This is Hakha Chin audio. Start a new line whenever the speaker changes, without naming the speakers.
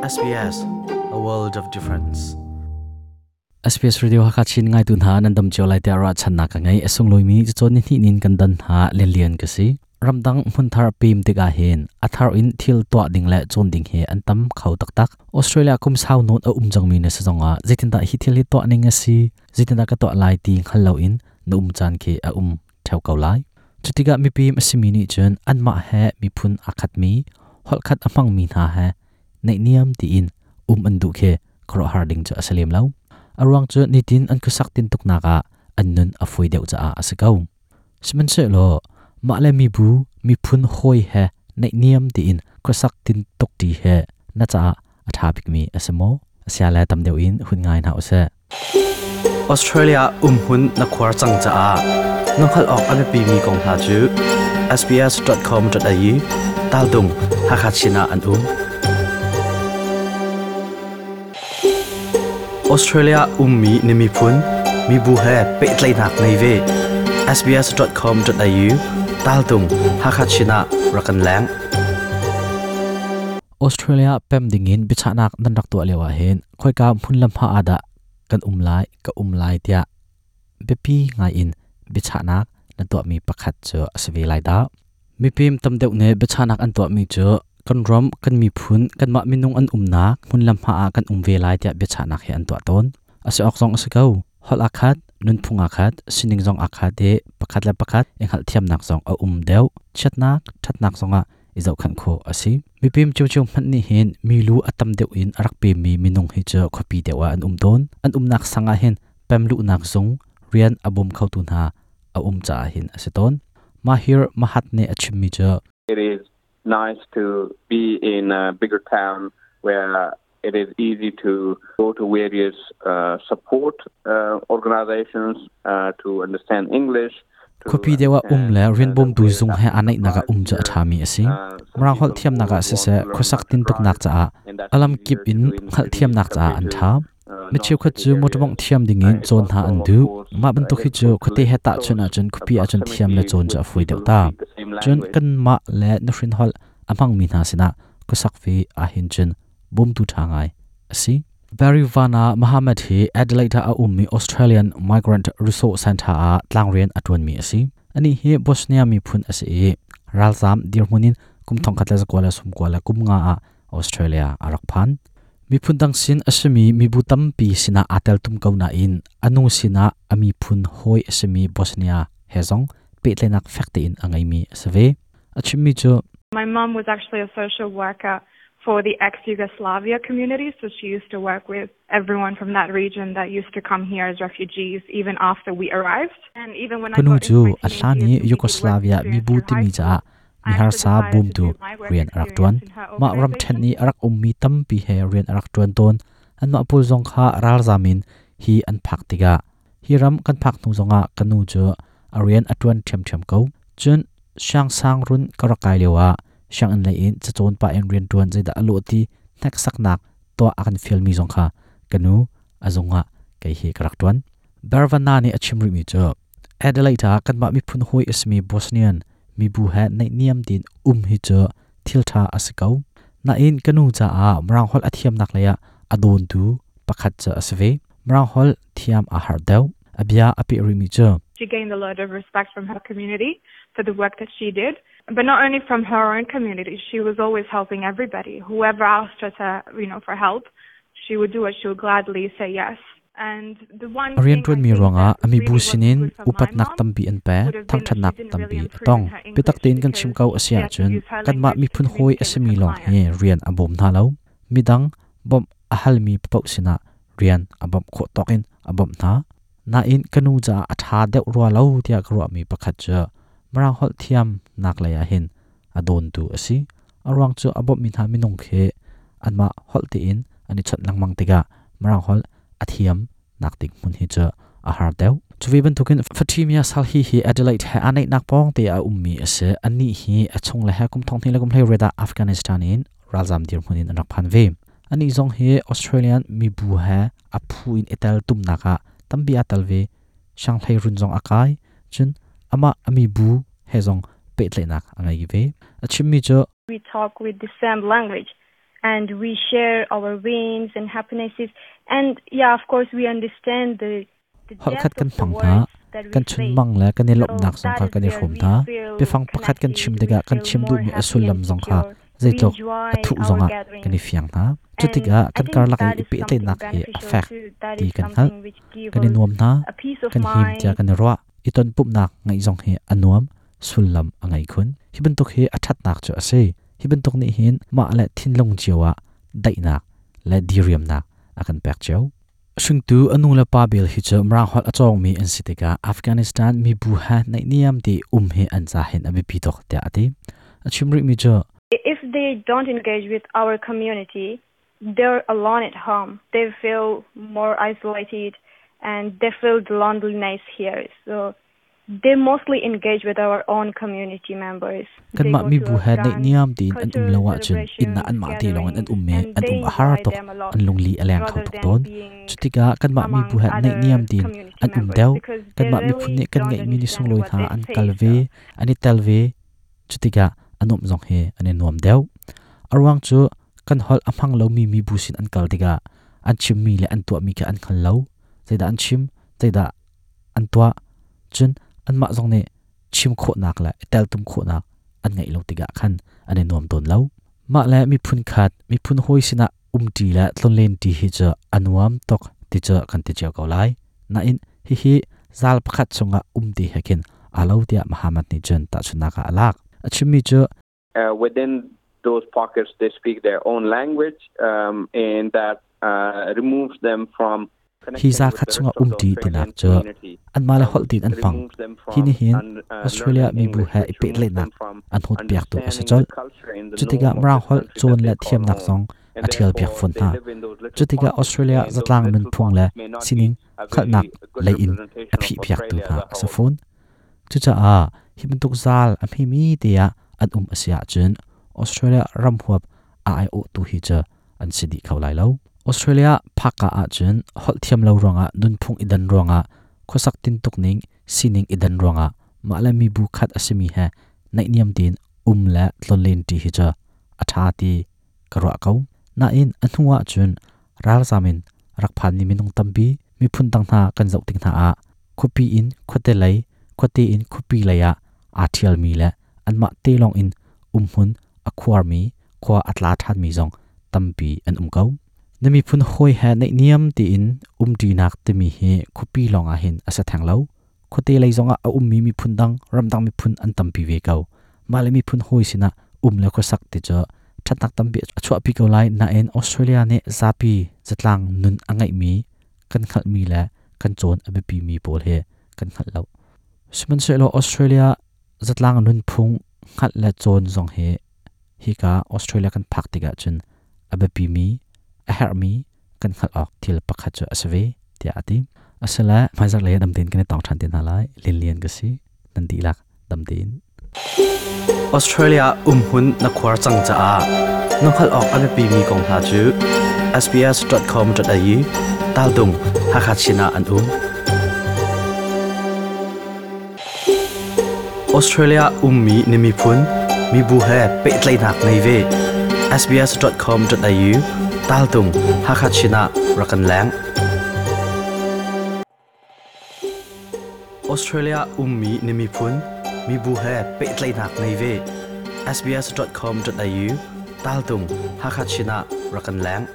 SBS, a world of difference. SBS Radio Hakachin ngai tu hna nan dam cio lai tiah ruahchannak ka ngei. A sunglawi mi cacawn ni hnih nin kan dan hna lianlian ka si. Ramdang hmunthar pem tikah hin a thar in thil tuah ding le cawn ding hi an tam kho taktak. Australia kum sau nawn a um cangmi na si zongah zeitindah hi thil hi tuah ning a si, zeitindah ka tuah lai ti hngal loin na um caan khi a um theo ko lai. Cutikah mipim a simi nih cun anmah he miphun aa khatmi, holhkhat a hmangmi hna he naihniam tiin um an duh khi khuaruahhar ding cu a si lem lo. A ruang cu nitin an khuasak tintuknak ah an nun a fawi deuh caah a si ko. Sihmanhsehlaw mah le mibu miphun hawi he naihniam tiin khuasak tintuk ṭi he na caah a ṭha bikmi a si maw? Sia le tam deuh in hun ngai hna usih. Australia umhmun na khuar cang caah na hngalh awk a biapimi kong hna cu sbs.com.au taltung Hakha Chin ah an um. Australia ummi na miphun mibu he pehtlaihnak ngei ve. sbs.com.au taltung Hakha Chin ah rak kan leng. Australia pem dingin biachahnak nan rak tuah lio ahhin khoika hmun le hma ah dah kan um lai ka um lai tiah biapi ngai in biachahnak na tuahmi pakhat cu a si ve lai dah. Mipim tam deuh nih biachahnak an tuahmi cu kan ram, kan miphun, kanmah minung an umnak hmun le hma ah kan um ve lai tiah biachahnak hi an tuah tawn. A si awk zong a si ko. Holh aa khat, nunphung aa khat, sining zong aa khat i pakhat le pakhat i hngalhthiamnak zong a um deuh. Chiatnak, ṭhatnak zongah i zohkhenh khawh a si. Mipim ciocio hmanh nih hin milu a tam deuh in a rak pemmi minung hi cu khuapi deuh ah an um tawn. An umnak sang ah hin pemluhnak zung rian a bawm khotu hna a um caah hin a si tawn. Mahir Mahat nih a chimmi cu
It is nice to be in a bigger town where it is easy to go to various support organizations to understand English.
Khuapi deuh ah um le rian bawmtu zung he aa naihnak ah um cu a ṭhami a si. Mirang holh thiamnak ah siseh, khuasak tintuknak caah a lamkip in hngalhthiamnak caah an ṭha. Mi cheukhat cu motor mawngh thiam dingin cawn hna an duh. Mah bantuk hi cu khuate he tahchunh ahcun khuapi ahcun thiam le cawn cu a fawi deuh ta. Cun kanmah le nuhrin holh a hmangmi hna sinah khuasak ve ahhin cun bawmtu ṭha ngai a si. Barry Vana Mohammed hi Adelaide ah a ummi Australian Migrant Resource Centre ah tlangrian a ṭuanmi a si. Anih hi Bosnia miphun a si i ralzaam dirhmun in kum 1995 ah Australia a rak phan. Miphun dang sin a simi mibu tampi sinah aa teltum ko nain a nu sinah a miphun hawi a simi Bosnia he zong pehtlaihnak fek tein a ngeimi a si ve. A chimmi cu
My mom was actually a social worker for the ex-Yugoslavia community, so she used to work with everyone from that region that used to come here as refugees even after we arrived. And even when I
Ka nu
got
cu
into my
a
teenage
hlan i
years and we did work
Yugoslavia
experience
mibu
through high
timi
school,
caah
I actually
miharsa
decided to
bawmtu
do my work
rian a rak
experience
ṭuan.
in her
Mah ramṭhen
organization.
i a rak ummi tampi he rian a rak ṭuan tawn. Anmah pawl zong kha ralzam in hi an phak tikah hi ram kan phak hnu zongah ka nu cu a rian a ṭuan ṭhiamṭhiam ko. Cun siangsang run ka rak kai lioah sianginn lei in cacawn pah in rianṭuan zeidah a lawh ti hneksaknak tuah a kan fialmi zong kha ka nu a zung ah kei hi ka rak ṭuan. Bervana nih a chim rihmi cu Adelaide ah kanmah miphun hawi a simi Bosnian mibu he naihniam tein um hi cu thil ṭha a si ko. Nain ka nu caah Mirang holh a thiamnak lei ah a dawntu pakhat cu a si ve. Mirang holh thiam aa harh deuh. A bia a peh rihmi cu
She gained a lot of respect from her community for the work that she did. But not only from her own community, she was always helping everybody. Whoever asked her to, for help, she would do it. She would gladly say yes. And the one
A
thing I
rianṭuanmi
think
ruangah
that
a mibu
really wasn't
sinin
good for my
upatnak
mom
tampi an pek,
would have been that she
thangṭhatnak
didn't really
tampi a
improve
tong.
in her
Biatak
English
tein kan chim
because
ko a si
she had to
ahcun
use her
kanmah
language to
miphun hawi a
communicate with
simi
her
lawng hi
clients.
rian a bawm hna lo. Midang bawmh a halmi paoh sinah rian a bawmh khawh tawk in a bawmh hna. Nain ka nu caah a ṭha deuh rua lo tiah ka ruahmi pakhat cu Mirang holh thiamnak lei ah hin a dawntu a si. A ruang cu a bawmhmi hna minung khi anmah holh tein an i chawnh lengmang tikah Mirang holh a thiam nak ding hmun hi cu a har deuh. Cu ve bantukin Fatimia Salhi hi Adelaide he aa naihnak pawng te ah a ummi a si. Anih hi a chung le he kum thong hnih le kum hleiriat ah Afghanistan in ralzam dirhmun in an rak phan ve. Anih zong hi Australian mibu he a phu in i tel tumnak ah tampi aa tel ve. Shanghai run zong a kai. Cun amah a mibu he zong pehtlaihnak a ngei ve. A chimmi cu
We talk with the same language.
And we share our wins and happinesses. And yeah, of course, we understand the
Holh khat kan hmang hna, kan chunmang le kan i lawmhnak zong kha kan i hrawm hna. Biafang pakhat kan chim tikah kan chim duhmi a sullam zong kha zeitluk a thuh zongah kan i fiang hna. Cu tikah kan karlak i i pehtlaihnak hi a fek ti kan hngalh. Kan i nuam hna, kan him tiah kan i ruah. I tonpumhnak ngeih zong hi a nuam, sullam a ngei khun. Hi bantuk hi a ṭhatnak cu a si. Hi bantuk nih hin mah le thinlung cio ah daihnak le diriamnak a kan pek cio. Hringtu a nu le pa bel hi cu Mirang holh a cawngmi an si tikah Afghanistan mibu he naihniam ti um hi an ca hin a biapi tuk tiah a ti. A chim rihmi cu
If they don't engage with our community, they're alone at home. They feel more isolated and they feel the loneliness here. So they mostly engage with our own community members.
Kanmah mibu he naihniam tein an um lo ahcun inn ah anmah te lawng in an um i an um a har tuk, an lungli a leng kho tuk tawn. Cutikah kanmah mibu he naihniam tein an um deuh. Kanmah miphun nih kan ngeihmi ni sunglawi hna an kal ve, an i tel ve. Cutikah a nuamh zong hi an i nuam deuh. A ruang cu kan holh a hmang lomi mibu sin an kal tikah an chimmi le an tuahmi kha an hngal lo. Zeidah an chim, zeidah an tuah, cun anmah zong nih chim khawhnak le i teltum khawhnak an ngeih lo tikah khan an i nuam tawn lo. Mah le miphun khat, miphun hawi sinah umṭi le tlonlenṭi hi cu a nuam tuk ti cu kan ti cio ko lai. Nain hihi zal pakhat chungah umti he khin aa lo tiah Muhammad nih cun tahchunhnak ah a lak. A chimmi cu
Within those pockets, they speak their own language and that removes them from
Hi za khat chungah umṭi tinak cu anmah le holh tiin an hmang. Hi nih hin Australia mibu he i pehtlaihnak an hawtpiaktu a si colh. Cutikah Mirang holh cawn le thiamnak zong a ṭhialpiak fawn hna. Cutikah Australia zatlang nunphung le sining hngalhnak lei in a phihpiaktu hna a si fawn. Cucaah hi bantuk zal a hmemi te ah an um a si ahcun Australia ram huap a aiawhtu hi cu an si dih kho lai lo. Australia phakka ahcun holh thiam lo ruangah, nunphung i dan ruangah, khuasak tintuk ning, sining i dan ruangah mah le mibu khat a simi he naihniam tein um le tlonlen ṭi hi cu a ṭha ti ka ruah ko. Nain a hnu ahcun ralzam in rak phanmi minung tampi miphun dang hna kan zoh tik hna ah khuapi in khuate lei, khuate in khuapi lei ah aa ṭhialmi le anmah te lawng in umhmun a khuarmi, khua a tla ṭhanmi zong tampi an um ko. Na miphun hawi he naihniam tein umṭinak timi hi khuapi lawng ah hin a si theng lo. Khuate lei zongah a ummi miphun dang, ramdang miphun an tampi ve ko. Mah le miphun hawi sinah um le khuasak ti cu ṭhatnak tampi a chuahpi ko lai, nain Australia nih zapi zatlang nun a ngeihmi kan hngalhmi le kan cawn a biapimi pawl hi kan hngalh lo. Sihmanhsehlaw Australia zatlang nunphung hngalh le cawn zong hi hika Australia kan phak tikah cun a biapimi, a herhmi kan hngalh awk thil pakhat cu a si ve tiah a ti. Asile hmaizarh lei dam tein kan i tong ṭhan te hna lai. Lin Lian ka si. Nan dihlak dam tein.
Australia umhmun na khuar cang caah na hngalh awk a biapimi kong hna cu sbs.com.au taldung Hakha Chin ah an um. Australia ummi na miphun, mibu he pehtlaihnak ngei ve. sbs.com.au taltung Hakha Chin ah rak kan leng. Australia ummi na miphun, mibu he pehtlaihnak ngei ve. sbs.com.au taltung Hakha Chin ah rak kan leng.